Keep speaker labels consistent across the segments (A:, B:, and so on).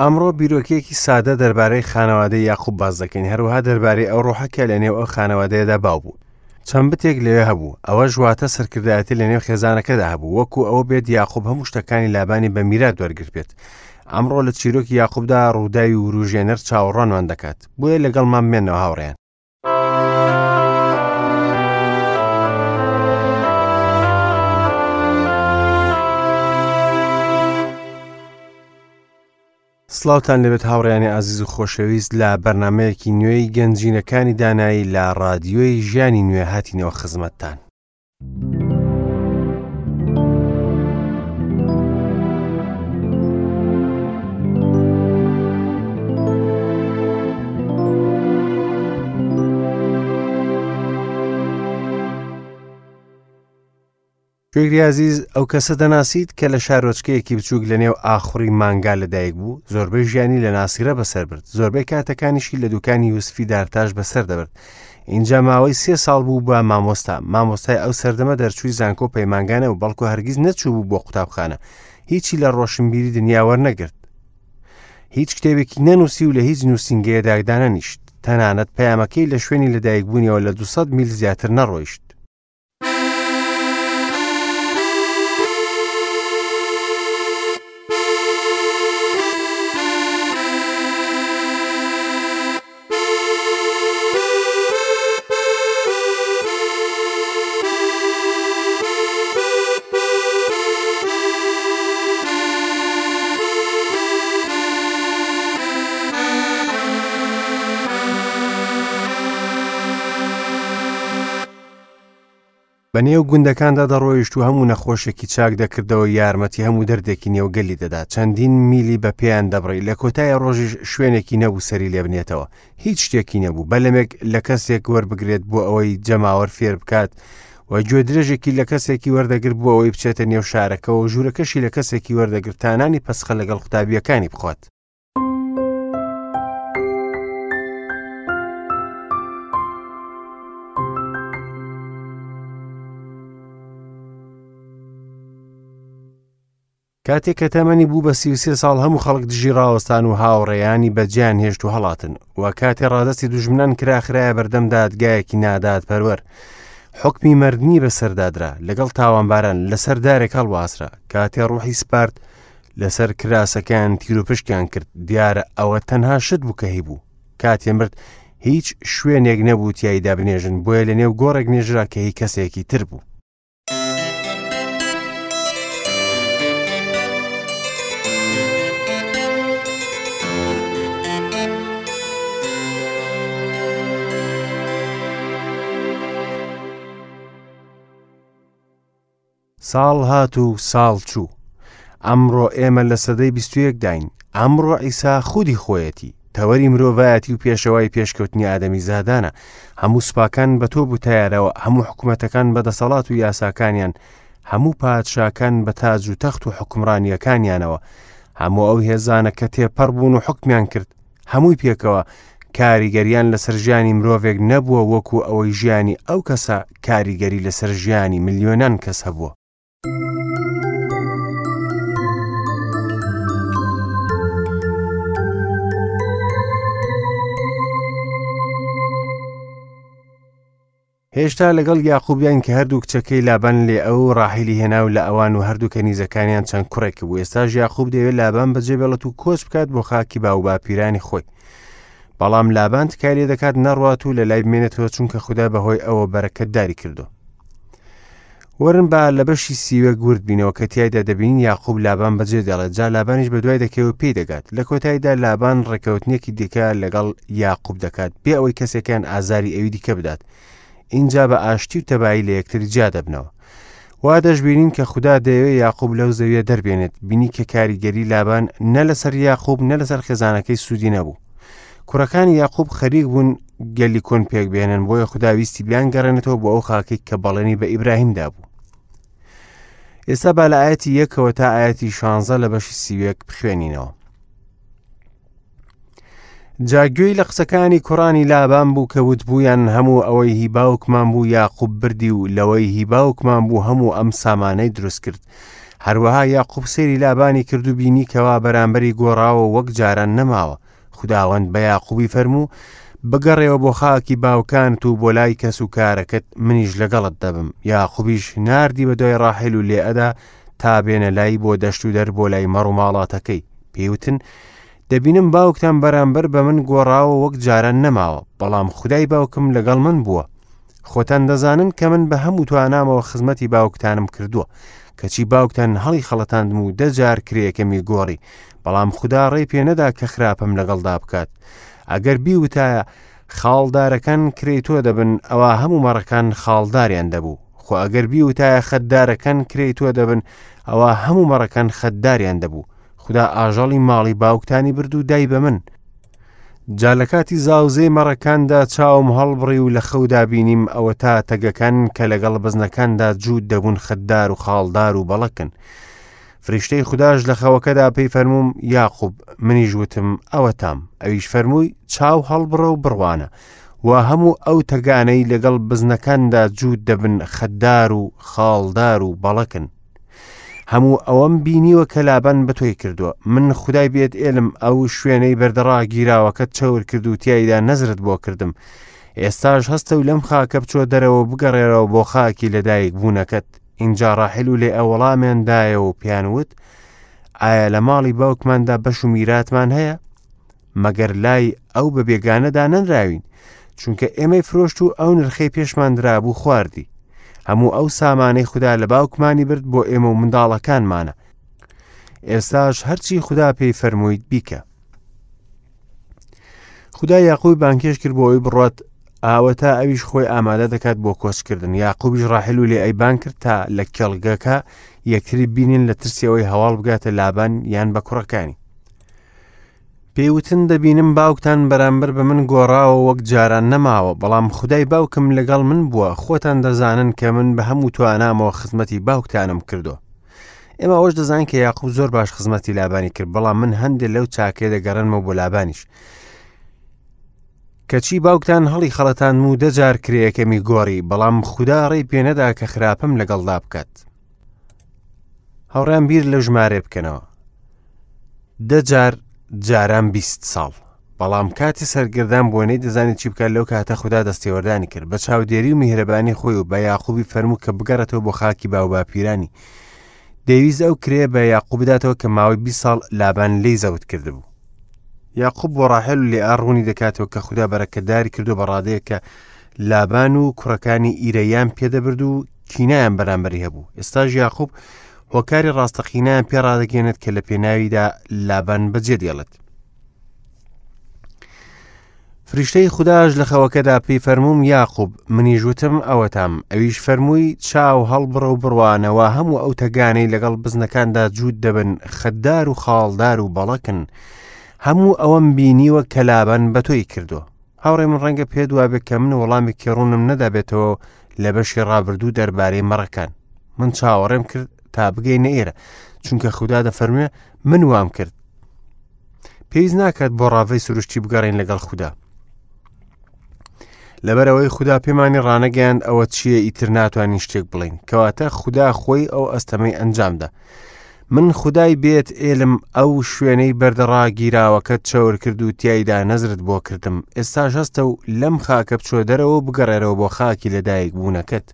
A: ئەمڕۆ بیرۆکەیەکی سادە دەربارەی خانەوادەی یاقوب باس دەکەین، هەروەها دەربارەی ئەو ڕۆحە کە لەنێو ئەو خانەوادەیەدا باو بوو. چەند بتێک لەوێ هەبوو، ئەوەش واتە سەرکردایەتی لەنێو خێزانەکەدا هەبوو، وەکو ئەوە بێت یاقوب هەموو شتەکانی لابانی بە میرات وەرگرتبێت. ئەمڕۆ لە چیرۆکی یاقوبدا ڕووداوی وروژێنەر چاوەڕوانمان دەکات، بۆیە لەگەڵمان بمێنەوە هاوڕێیان. سڵاوتان لەبێت هاوڕیانی ئازیز و خۆشەویست لە بەرنمەیەکی نوێی گەنجینەکانی دانایی لە ڕادیۆی ژیانی نوێ هاتینەوە خزمەتتان. گوێگری ئازیز ئەو کەسە دەناسیت کە لە شارۆچکەیەکی بچووک لە نێو ئاخوڕی مانگا لەدایک بوو زۆربەی ژیانی لە ناسیرە بەسەر برد زۆربەی کاتەکانیشی لە دوکانی یوسفی دارتاش بەسەر دەبرد اینجا ماوەی سێ ساڵ بوو بە مامۆستا مامۆستای ئەو سەردەمە دەرچووی زانکۆ پەیمانگانە و بەڵکو هەرگیز نەچوو بوو بۆ قوتابخانە هیچی لە ڕۆشنبیری دنیا وەرنەگرت هیچ کتێبێکی نەنووسی و لە هیچ نووسینگەیەدا دانەنیشت تەنانەت پەیامەکەی لە شوێنی لەدایکبوونیەوە لە 200 میل زیاتر نەڕۆیشت بە نێو گوندەکاندا دەڕۆیشت و هەموو نەخۆشێکی چاک دەکردەوە یارمەتی هەموو دەردێکی نێو گەلی دەدا چەندین میلی بە پێیان دەبڕی لە کۆتای ڕۆژیش شوێنێکی نەبوو سەری لێبنێتەوە هیچ شتێکی نەبوو بەلەمێک لە کەسێک وەربگرێت بۆ ئەوەی جەماوەر فێر بکات و گوێدرێژێکی لە کەسێکی وەردەگرت بۆ ئەوەی بچێتە نێو شارەکەەوە و ژوورەکەشی لە کەسێکی وەردەگرت تا نانی پەسخە لەگەڵ قوتابییەکانی بخوات. کاتێک کە تەمەنی بوو بە 33 ساڵ هەموو خەڵک دژی ڕاوەستان و هاوڕێیانی بەجیان هێشت و هەڵاتن و کاتێ ڕادستی دوژمنان کرا خرایە بەردەم دادگایەکی نادادپەروەر حکمی مردنی بەسەردادرا لەگەڵ تاوانباران لەسەر دارێک هەڵواسرا کاتێ ڕوحی سپارد لەسەر کراسەکەیان تیروپشکیان کرد دیارە ئەوە تەنها شت بوو کە هەیبوو کاتێ مرد هیچ شوێنێک نەبوو تیایدا بنێژن بۆیە لە نێو گۆڕێک نێژرا کە هی کەسێکی تر بوو. ساڵ هات و ساڵ چوو. ئەمڕۆ ئێمە لە سەدەی 21 داین. ئەمڕۆ عیسا خودی خۆیەتی. تەوەری مرۆڤایەتی و پێشەوای پێشکەوتنی ئادەمیزادانە. هەموو سوپاکان بە تۆپ و تەیارەوە، هەموو حکومەتەکان بە دەسەڵات و یاساکانیان، هەموو پادشاکان بە تاج و تەخت و حوکمڕانییەکانیانەوە، هەموو ئەو هێزانە کە تێپەڕ بوون و حوکمیان کرد، هەمووی پێکەوە کاریگەریان لەسەر ژیانی مرۆڤێک نەبووە وەکو ئەوەی ژیانی ئەو کەسە کاریگەری لەسەر ژیانی ملیۆنان کەس هەبووە. هێشتا لەگەڵ یاقوبیان کە هەردوو کچەکەی لابان لێ ئەو ڕاحیلی هێنا و لە ئەوان و هەردوو کەنیزەکانیان چەند کوڕێک بوو ئێستاش یاقوب دەیەوێت لابان بەجێ بێڵێت و کۆچ بکات بۆ خاکی باوباپیرانی خۆی بەڵام لابان تکای لێ دەکات نەڕوات و لە لای بمێنێتەوە چونکە خودا بەهۆی ئەوە بەرەکەتداری کردو وەرن با لە بەشی سیوەک ورد بینەوە کە تیایدا دەبینین یاقوب لابان بەجێ دێڵێت جا لابانیش بە دوای دەکەوێت و پێی دەگات لە کۆتاییدا لابان ڕێکەوتنێکی دیکە لەگەڵ یاقوب دەکات بێ ئەوەی کەسێکیان ئازاری ئەوی دیکە بدات ئینجا بە ئاشتی و تەبایی لە یەکتر جیا دەبنەوە وا دەشبینین کە خودا دەیەوێت یاقوب لەو زەویە دەربێنێت بینی کە کاریگەری لابان نە لەسەر یاقوب نە لەسەر خێزانەکەی سوودی نەبوو کوڕەکانی یاقوب خەریک بوون گەلی کۆن پێک بێنن بۆیە خودا ویستی بیانگەڕێنێتەوە بۆ ئەو خاکەی کە بەڵێنی بە ئیبراهیم دابوو ئێستا با لە ئاەتی یەکەوە تا ئاەتی شانزە لە بەشی سیوێک بخوێنینەوە جا گوێی لە قسەکانی کوڕانی لابان بوو کە وتبوویان هەموو ئەوەی هی باوکمان بوو یاقوب بردی و لەوەی هی باوکمان بوو هەموو ئەم سامانەی دروست کرد. هەروەها یاقوب سەیری لابانی کرد و بینی کەوا بەرامبەری گۆڕاوە و وەک جاران نەماوە. خوداوەند بە یاقوبی فەرموو، بگەڕێوە بۆ خاکی باوکانت و بۆ لای کەس و کارەکەت، منیش لەگەڵت دەبم. یاقوبیش ناردی بە دوای ڕاحێل و لێئەدا تا بێنە لای بۆ دەشت و دەر بۆ لای مەڕ و ماڵاتەکەی. پێی وتن، دەبینم باوکتان بەرامبەر بە من گۆڕاوە وەک جاران نەماوە، بەڵام خودای باوکم لەگەڵ من بووە. خۆتان دەزانن کە من بە هەموو توانامەوە خزمەتی باوکتانم کردووە، کەچی باوکتان هەڵی خەڵەتاندم و دە جار کرێیەکەمی گۆڕی، بەڵام خودا ڕێی پێ نەدا کە خراپەم لەگەڵدا بکات. ئەگەر بیوتایە، خاڵدارەکان کرێی تۆ دەبن، ئەوا هەموو مەڕەکان خاڵداریان دەبوو. خۆ ئەگەر بیوتایە خەتدارەکان کرێی تۆ دەبن، ئەوا هەموو مەڕەکان خەتداریان دەبوو. خودا ئاژەڵی ماڵی باوکتانی برد و دای بە من. جا لە کاتی زاوزێی مەڕەکاندا چاوم هەڵبڕی و لە خەودا بینیم ئەوەتا تەگەکان کە لەگەڵ بزنەکاندا جووت دەبوون خەتدار و خاڵدار و بەڵەکن. فریشتەی خوداش لە خەوەکەدا پێی فەرمووم، یاقوب، منیش وتم، ئەوەتام. ئەویش فەرمووی، چاو هەڵبڕە و بڕوانە، وا هەموو ئەو تەگانەی لەگەڵ بزنەکاندا جووت دەبن خەتدار و خاڵدار و بەڵەکن. هەموو ئەوەم بینیوە کە لابان بە تۆی کردووە. من خودای بێت ئێلم، ئەو شوێنەی بەردەڕاگیراوەکەت چەور کرد و تیایدا نەزرت بۆ کردم. ئێستاش هەستە و لەم خاکە بچۆ دەرەوە و بگەڕێرەوە بۆ خاکی لەدایک بوونەکەت. ئینجا ڕاحیل و لێئە وەڵامیان دایەوە و پێیان وت، ئایا لە ماڵی باوکماندا بەش و میراتمان هەیە؟ مەگەر لای ئەو بە بێگانە دانەنراوین؟ چونکە ئێمەی فرۆشت و ئەو نرخەی پێشمان درابوو خواردی. هەموو ئەو سامانەی خودا لە باوکمانی برد بۆ ئێمە و منداڵەکانمانە. ئێستاش هەرچی خودا پێی فەرموویت بیکە. خودا یاقوبی بانگهێشت کرد بۆ ئەوەی بڕوات ئاوەتا ئەویش خۆی ئامادە دەکات بۆ کۆچکردن یاقوبیش ڕاحل و لێئەی بانگ کرد تا لە کێڵگەکە یەکتری بینین لە ترسی ئەوەی هەواڵ بگاتە لابان یان بە کوڕەکانی پێی وتن دەبینم باوکتان بەرامبەر بە من گۆڕاوە وەک جاران نەماوە بەڵام خودای باوکم لەگەڵ من بووە خۆتان دەزانن کە من بە هەموو توانامەوە خزمەتی باوکتانم کردووە ئێمە ئەوەش دەزانین کە یاقوب زۆر باش خزمەتی لابانی کرد بەڵام من هەندێک لەو چاکەیە دەگەڕێنمەوە بۆ لابانیش کەچی باوکتان هەڵی خەڵەتاندم و دەجار کرێیەکەمی گۆڕی بەڵام خودا ڕێی پێنەدا کە خراپەم لەگەڵدا بکات هاوڕیان بیر لە ژمارە بکەنەوە دەجار جاران 20 ساڵ بەڵام کاتی سەرگردان بووە نەیدەزانی چی بکات لەو کاتە خودا دەستێوەردانی کرد بە چاودێری و میهرەبانی خۆی و بە یاقوبی فەرموو کە بگەڕێتەوە بۆ خاکی باوباپیرانی دەیویست ئەو کرێ بە یاقوب بداتەوە کە ماوەی 20 ساڵ لابان لێی زەوت کردبوو یاقوب بۆ ڕاحێل و لێئا ڕوونی دەکاتەوە کە خودا بەرەکەتداری کردو بە ڕادەیەک کە لابان و کوڕەکانی ئیرەیان پێدەبرد و کینایان بەرامبەری هەبوو ئێستاش یاقوب هۆکاری ڕاستەقینەیان پێ ڕادەگەێنێت کە لە پێناویدا لابان بەجێ دێڵێت فریشتەی خوداش لە خەوەکەدا پێی فەرمووم یاقوب منیش وتم ئەوەتام ئەویش فەرمووی چاو هەڵبڕە و بڕوانەوە هەموو ئەو تەگانەی لەگەڵ بزنەکاندا جووت دەبن خەتدار و خاڵدار و بەڵەکن هەموو ئەوەم بینیوە کە لابان بە تۆی کردووە هاوڕێ من ڕەنگە پێت وابێ کە من وەڵامێکی ڕوونم نەدابێتەوە لە بەشی ڕابردوو دەربارەی مەڕەکان من چاوەڕێم کرد تا بگەینە ئێرە چونکە خودا دەفەرموێ من وام کرد پێویست ناکات بۆ ڕاڤەی سروشتی بگەڕین لەگەڵ خودا لەبەرەوەی خودا پێمانی ڕانەگەیاند ئەوە چییە ئیتر ناتوانین شتێک بڵین کەواتە خودا خۆی ئەو ئەستەمەی ئەنجامدا من خودای بێت ئێلم ئەو شوێنەی بەردەڕاگیراوەکە چەور کرد و تایدا نەزرت بۆ کردم ئێستاش هەستە و لەم خاکە بچۆ دەرەوە و بگەڕێرەوە بۆ خاکی لەدایک بوونەکەت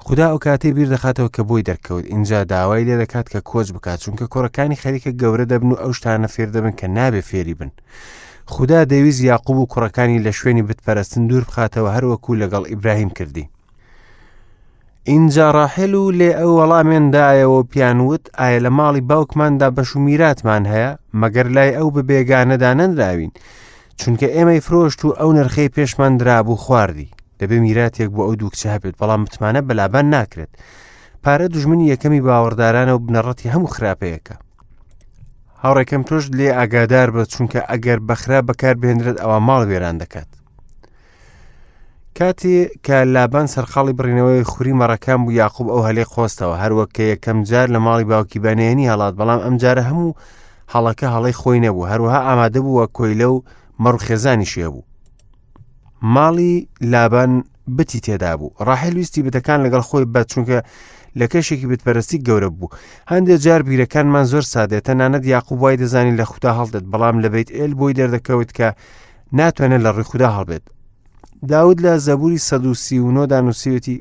A: خودا ئەو کاتەی بیر دەخاتەوە کە بۆی دەرکەوت ئینجا داوای لێ دەکات کە کۆچ بکات چونکە کوڕەکانی خەریکە گەورە دەبن و ئەو شتانە فێر دەبن کە نابێ فێری بن خودا دەویست یاقوب و کوڕەکانی لە شوێنی بتپەرستن دوور بخاتەوە هەروەکو لەگەڵ ئیبراهیم کردی ئینجا ڕاحێل و لێ ئەو وەڵامێن دایەوە و پیان وت ئایا لە ماڵی باوکماندا بەش و میراتمان هەیە مەگەر لای ئەو بە بێگانە دانەنراوین چونکە ئێمەی فرۆشت و ئەو نرخەی پێشمان درابوو خواردی دەبێ میراتێک بۆ ئەو دوو کچە هەبێت بەڵام متمانە بە لابان ناکرێت پارە دوژمنی یەکەمی باوەڕدارانە و بنەڕەتی هەموو خراپەیەکە هاوڕێکەم تۆش لێ ئاگادار بە چونکە ئەگەر بەخرا بەکار بهێنرێت ئەوە ماڵ وێران دەکات کاتێ کە لابان سەرقاڵی بڕینەوەی خوری مەڕەکان بوو یاقوب ئەو هەلەی قۆستەوە هەروەک کە یەکەم جار لە ماڵی باوکی بەنێنی هەڵات بەڵام ئەم جارە هەموو هەڵەکە هەڵەی خۆی نەبوو هەروەها ئامادە بووە کۆیلە و مەڕ خێزانیشی هەبوو ماڵی لابان بتی تێدا بوو ڕاحێل ویستی بتەکان لەگەڵ خۆی بە چونکە لە کەشێکی بتپەرستی گەورە بوو. هەندێک جار بیرەکانمان زۆر سادەیە، تەنانەت یاقوب وای دەزانی لە خودا هەڵدێت، بەڵام لە بەیت ئێل بۆی دەردەکەوت کە ناتوانێت لە ڕووی خودا هەڵبێت. داود لە زەبوری 139 دا نووسیوێتی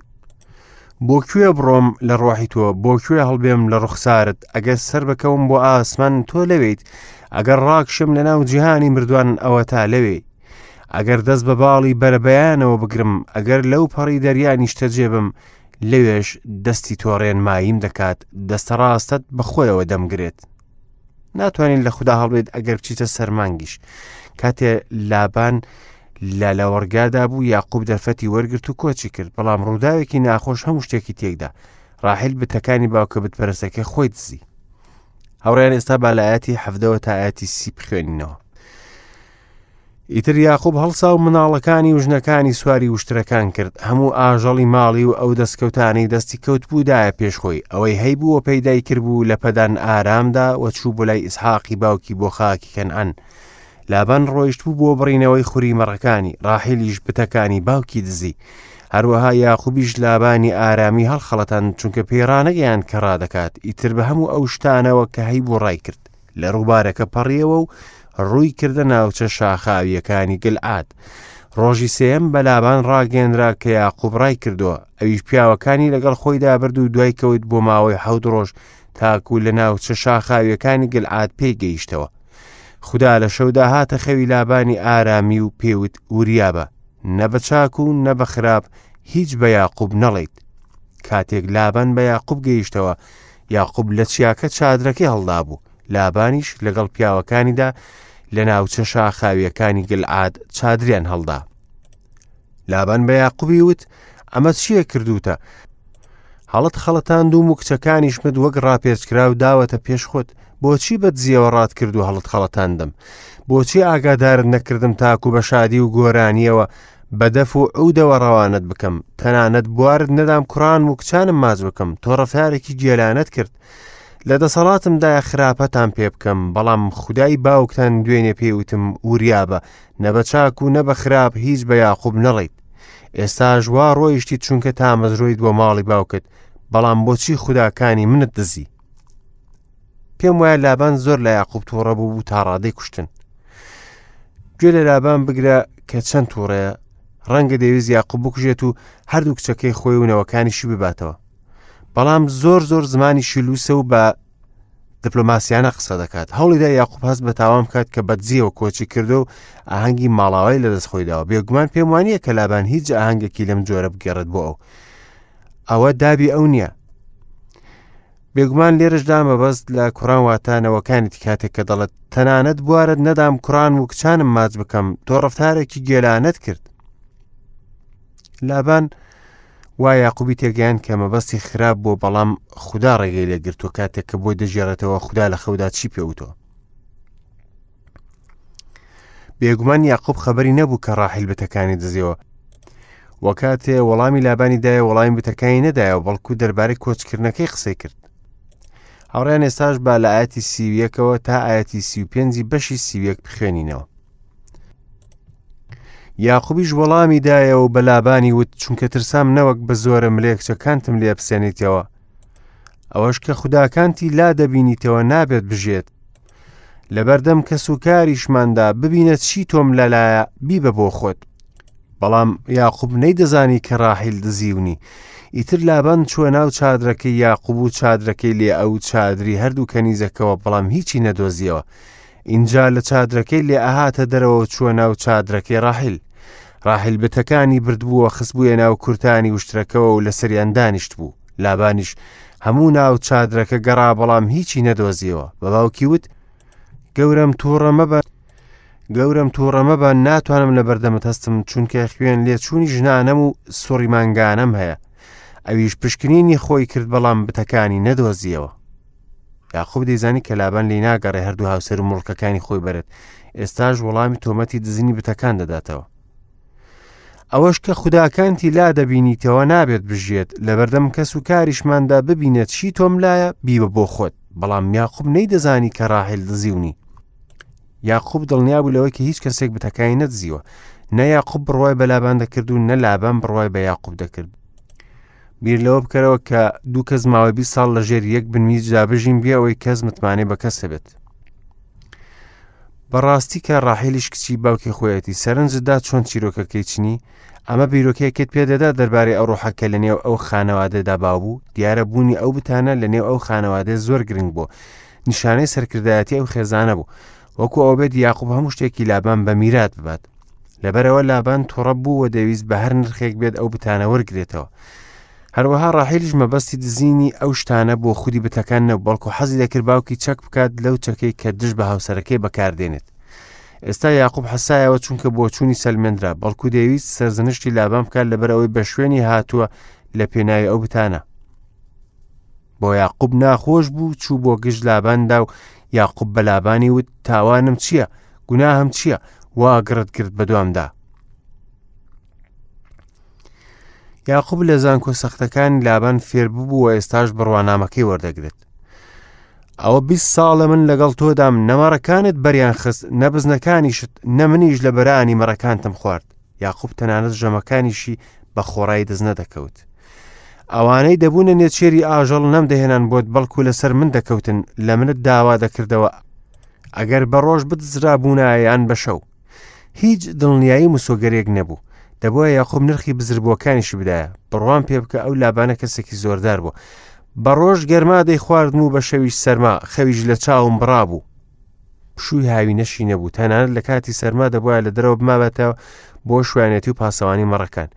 A: بۆ کوێ بڕۆم لە ڕۆحی تۆ، بۆ کوێ هەڵبێم لە ڕوخسارت، ئەگەر سەر بکەوم بۆ ئاسمان تۆ لەوێیت، ئەگەر ڕاکشم لە ناو جیهانی مردوان ئەوەتا لەوێی. ئەگەر دەست بە باڵی بەرەبەیانەوە بگرم، ئەگەر لەو پەڕی دەریا نیشتەجێ بم، لەوێش دەستی تۆ ڕێنماییم دەکات، دەستە ڕاستەت بە خۆیەوە دەمگرێت. ناتوانین لە خودا هەڵبێت ئەگەر بچیتە سەرمانگیش. کاتێ لابان لە لەوەڕگادا بوو یاقوب دەرفەتی وەرگرت و کۆچی کرد، بەڵام ڕووداوێکی ناخۆش هەموو شتێکی تێکدا. ڕاحیل بتەکانی باوکە بتپەرستەکەی خۆی دزی. هاوڕێیان ئێستا با لە ئاەتی حەڤدەوە تا ئاەتی سی بخوێنینەوە. ئیتر یاقوب هەڵسا و مناڵەکانی و ژنەکانی سواری وشترەکان کرد، هەموو ئاژەڵی ماڵی و ئەو دەستکەوتانەی دەستی کەوتبوو دایە پێش خۆی، ئەوەی هەیبوو و پەیدای کردبوو لە پەدان ئارامدا و چوو بۆ لای ئیسحاقی باوکی بۆ خاکی کەنعان. لابان ڕۆیشتبوو بۆ بڕینەوەی خوری مەڕەکانی، ڕاحیلیش بتەکانی باوکی دزی. هەروەها یاقوبیش لابانی ئارامی هەڵخەڵەتاند، چونکە پێی ڕانەگەیاند کە ڕادەکات، ئیتر بە هەموو ئەو شتانەوە کە هەیبوو ڕایکرد. لە ڕووبارەکە پەڕیەوە و ڕووی کردە ناوچە شاخاوییەکانی گلعاد. ڕۆژی سێیەم بە لابان ڕاگەیەنرا کە یاقوب ڕای کردووە، ئەویش پیاوەکانی لەگەڵ خۆیدا برد و دوای کەوت بۆ ماوەی حەوت ڕۆژ تاکو لە ناوچە شاخاوییەکانی گلعاد پێی گەیشتەوە. خودا لە شەودا هاتە خەوی لابانی ئارامی و پێوت وریابە، نە بە چاک و نە بە خراپ هیچ بە یاقوب نەڵێیت. کاتێک لابان بە یاقوب گەیشتەوە، یاقوب لە چیاکە چادرەکەی هەڵدابوو، لابانیش لەگەڵ پیاوەکانیدا لە ناوچە شاخاویەکانی گلعاد چادریان هەڵدا. لابان بە یاقوبی وت، ئەمە چییە کردوتە؟ هەڵت خەڵەتاندوم و کچەکانیشمت وەک ڕاپێچکراو داوەتە پێش خۆت، بۆچی بە دزیەوە ڕات کرد و هەڵت خەڵەتاندم؟ بۆچی ئاگادارت نەکردم تاکو بە شادی و گۆرانیەوە بە دەف و عودەوە ڕەوانەت بکەم، تەنانەت بوارت نەدام کوڕان و کچانم ماچ بکەم، تۆ ڕەفتارێکی گێلانەت کرد. لە دەسەڵاتمدایە خراپەتان پێ بکەم، بەڵام خودای باوکتان دوێنێ پێی وتم وریابە، نە بە چاک و نە بە خراپ هیچ بە یاقوب نەڵێیت. ئێستاش وا ڕۆیشتیت چونکە تامەزرۆیت بۆ ماڵی باوکت، بەڵام بۆچی خوداکانی منت دزی؟ پێم وایە لابان زۆر لە یاقوب تووڕە بوو بوو تا ڕادەی کوشتن. گوێ لە لابان بگرە کە چەند تووڕەیە، ڕەنگە دەیویست یاقوب بکوژێت و هەردوو کچەکەی خۆی و نەوەکانیشی بباتەوە. بەڵام زۆر زۆر زمانی شیلوسە و بە دیپلۆماسیانە قسە دەکات. هەوڵیدا یاقوب هەست بە تاوان بکات کە بەدزیەوە کۆچی کردو و ئاهەنگی ماڵاوای لەدەست خۆی داوە. بێگومان پێم وانییە کە لابان هیچ ئاهەنگێکی لەم جۆرە بگێڕێت بۆ ئەو. ئەوە دابی ئەو نییە. بێگومان لێرەشدا مەبەست لە کوڕان واتە نەوەکانیتی کاتێک کە دەڵێت تەنانەت بوارت نەدام کوڕان و کچانم ماچ بکەم تۆ ڕەفتارێکی گێلانەت کرد لابان وا یاقوبی تێگەیان کە مەبەستی خراپ بۆ بەڵام خودا ڕێگەی لێگرتووە کاتێک کە بۆی دەژێڕێتەوە خودا لە خەودا چی پێوتەوە بێگومان یاقوب خەبەری نەبوو کە ڕاحیل بتەکانی دزیەوە و کاتێ وەڵامی لابانی دایە وەڵامی بتەکانی نەدایەوە بەڵکو دەربارەی کۆچکردنەکەی قسەی کرد هاوڕیان ئێستاش با لە ئاەتی سیویەکەوە تا ئاەتی سی و پێنجی بەشی سیویەک بخوێنینەوە یاقوبیش وەڵامی دایەوە و بە لابانی وت چونکە ترسام نەوەک بە زۆرە ملێ کچەکانتم لێ بسێنیتەوە ئەوەش کە خوداکانتی لا دەبینیتەوە نابێت بژێت لەبەردەم کەس و کاریشماندا ببینە چی تۆم لەلایە بیبە بۆ خۆت. بەڵام یاقوب نەیدەزانی کە ڕاحیل دزیونی. ئیتر لابان چووە ناو چادرەکەی یاقوب و چادرەکەی لێئە و چادری هەردوو کەنیزەکەوە بەڵام هیچی نەدۆزیەوە. ئینجا لە چادرەکەی لێئە هاتە دەرەوە و چووە ناو چادرەکەی ڕاحیل. ڕاحیل بتەکانی بردبووە خستبوویە ناو کورتانی وشترەکەوە و لەسەریان دانیشتبوو. لابانیش هەموو ناو چادرەکە گەڕا بەڵام هیچی نەدۆزیەوە بە باوکی وت گەورەم تووڕە مەبە گەورەم تووڕە مەبە ناتوانم لە بەردەمت هەستم چونکە خوێن لێچوونی ژنانەم و سوڕی مانگانەم هەیە ئەویش پشکنینی خۆی کرد بەڵام بتەکانی نەدۆزیەوە یاقوب دەیزانی کە لابان لی ناگەڕێ هەردوو هاوسەر و مڵکەکانی خۆی بەرێت ئێستاش وەڵامی تۆمەتی دزینی بتەکان دەداتەوە ئەوەش کە خوداکانتی لا دەبینیتەوە نابێت بژیێت، لەبەردەم کەس و کاریشماندا ببینە چی تۆم لایە بیبە بۆ خۆت. بەڵام یاقوب نەیدەزانی کە ڕاحیل دزیونی. یاقوب دڵنیا بوو لەوەی کە هیچ کەسێک بتەکانی نەدزیوە. نە یاقوب بڕوای بە لابان دەکرد و نە لابان بڕوای بە یاقوب دەکرد. بیر لەوە بکەرەوە کە دوو کەس ماوەی 20 ساڵ لە ژێر یەک بنمیچدا بژین بێ ئەوەی کەس متمانەی بە کەس هەبێت. بەڕاستی کە ڕاحیلیش کچی باوکی خۆیەتی سەرنجتدا چۆن چیرۆکەکەی چنی ئەمە بیرۆکەیەکت پێدەدا دەربارەی ئەو ڕۆحە کە لە نێو ئەو خانەوادەدا باو بوو دیارە بوونی ئەو بتانە لە نێو ئەو خانەوادەیە زۆر گرنگ بوو نیشانەی سەرکردایەتی ئەو خێزانە بوو وەکو ئەو بێت یاقوب هەموو شتێکی لابان بە میرات ببات لەبەرەوە لابان توڕە بوو و دەویست بە هەر نرخێک بێت ئەو بتانە وەرگێتەوە هەروەها ڕاحیلیش مەبەستی دزینی ئەو شتانە بۆ خودی بتەکان نەبوو، بەڵکو حەزی دەکرد باوکی چەک بکات لەو چەکەی کە دژ بە هاوسەرەکەی بەکاردێنێت. ئێستا یاقوب حەسایەوە چونکە بۆچوونی سەلمێنرا، بەڵکو دەیویست سەرزنشتی لابان بکات لەبەر ئەوەی بە شوێنی هاتووە لە پێناوی ئەو بتانە. بۆ یاقوب ناخۆش بوو چوو بۆ گژ لاباندا و یاقوب بە لابانی وت تاوانم چییە؟ گوناهم چییە؟ وا گڕت گرت بەدوامدا. یاقوب لە زانکۆ سەختەکانی لابان فێر ببوو و ئێستاش بڕوانامەکەی وەردەگرێت. ئەوە 20 ساڵە من لەگەڵ تۆدام نەمەڕەکانت بەریان خست نە بزنەکانیشت نە منیش لە بەرانی مەڕەکانتم خوارد. یاقوب تەنانەت ژەمەکانیشی بە خۆڕایی دەست نەدەکەوت. ئەوانەی دەبوونە نێچێری ئاژەڵ نەمدەهێنان بۆت بەڵکو لەسەر من دەکەوتن لە منت داوا دەکردەوە ئەگەر بە ڕۆژ بدزرابوونایە یان بە شەو. هیچ دڵنیایی مسۆگەرێک نەبوو. دەبووە یاقوب نرخی بزربووەکانیشی بدایە. بڕوام پێ بکە ئەو لابانە کەسێکی زۆردار بوو. بە ڕۆژ گەرما دەیخواردم و بە شەویش سەرما، خەویش لە چاوم بڕابوو. پشووی هاوینەشی نەبوو، تەنانەت لە کاتی سەرما دەبوایە لە دەرەوە بمابێتەوە بۆ شوانێتی و پاسەوانی مەڕەکان.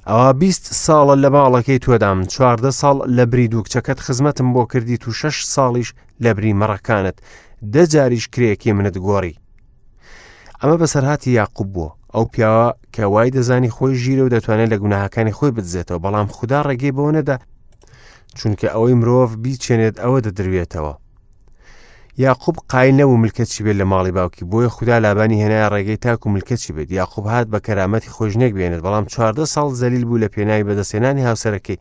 A: ئەوا 20 ساڵە لە ماڵەکەی تۆدام، 14 ساڵ لە بری دوو کچەکەت خزمەتم بۆ کردیت و شەش ساڵیش لە بری مەڕەکانت، دە جاریش کرێیەکەی منت گۆڕی. ئەمە بەسەرهاتی یاقوب بووە ئەو پیاوە کە وای دەزانی خۆی ژیرە و دەتوانێت لە گوناهەکانی خۆی بدزێتەوە بەڵام خودا ڕێگەی بەوە نەدا چونکە ئەوەی مرۆڤ بیچێنێت ئەوە دەدروێتەوە یاقوب قایل نەبوو ملکەچی بێت لە ماڵی باوکی بۆیە خودا لابانی هێنایە ڕێگەی تاکو ملکەچی بێت یاقوب هات بە کەرامەتی خۆی ژنێک بێنێت بەڵام 14 ساڵ زەلیل بوو لە پێناوی بەدەستهێنانی هاوسەرەکەی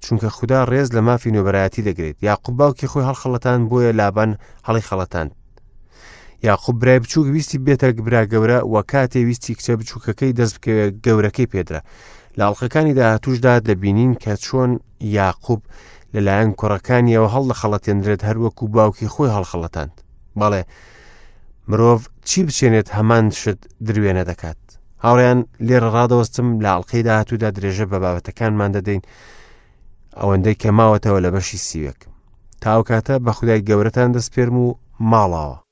A: چونکە خودا ڕێز لە مافی نۆبەرایەتی دەگرێت یاقوب باوکی خۆی هەڵخەڵەتان بۆیە لابان هەڵی خەڵەتاند یاقوب برای بچووک ویستی بێتە برا گەورە و کاتێ ویستی کچە بچووکەکەی دەست بکەوێت گەورەکەی پێدرا لە ئەڵلقەکانی داهاتوشدا دەبینین کە چۆن یاقوب لەلایەن کوڕەکانیەوە هەڵدەخەڵەتێنرێت هەروەکو باوکی خۆی هەڵخەڵەتاند بەڵێ مرۆڤ چی بچێنێت هەمان شت دروێنە دەکات هاوڕیان لێرە ڕادەوەستم لە ئەڵلقەی داهاتوودا درێژە بە بابەتەکانمان دەدەین ئەوەندەی کە ماوەتەوە لە بەشی سیوێک تاوکاتە بە خودای گەورەتان دەسپێرم و ماڵاوە.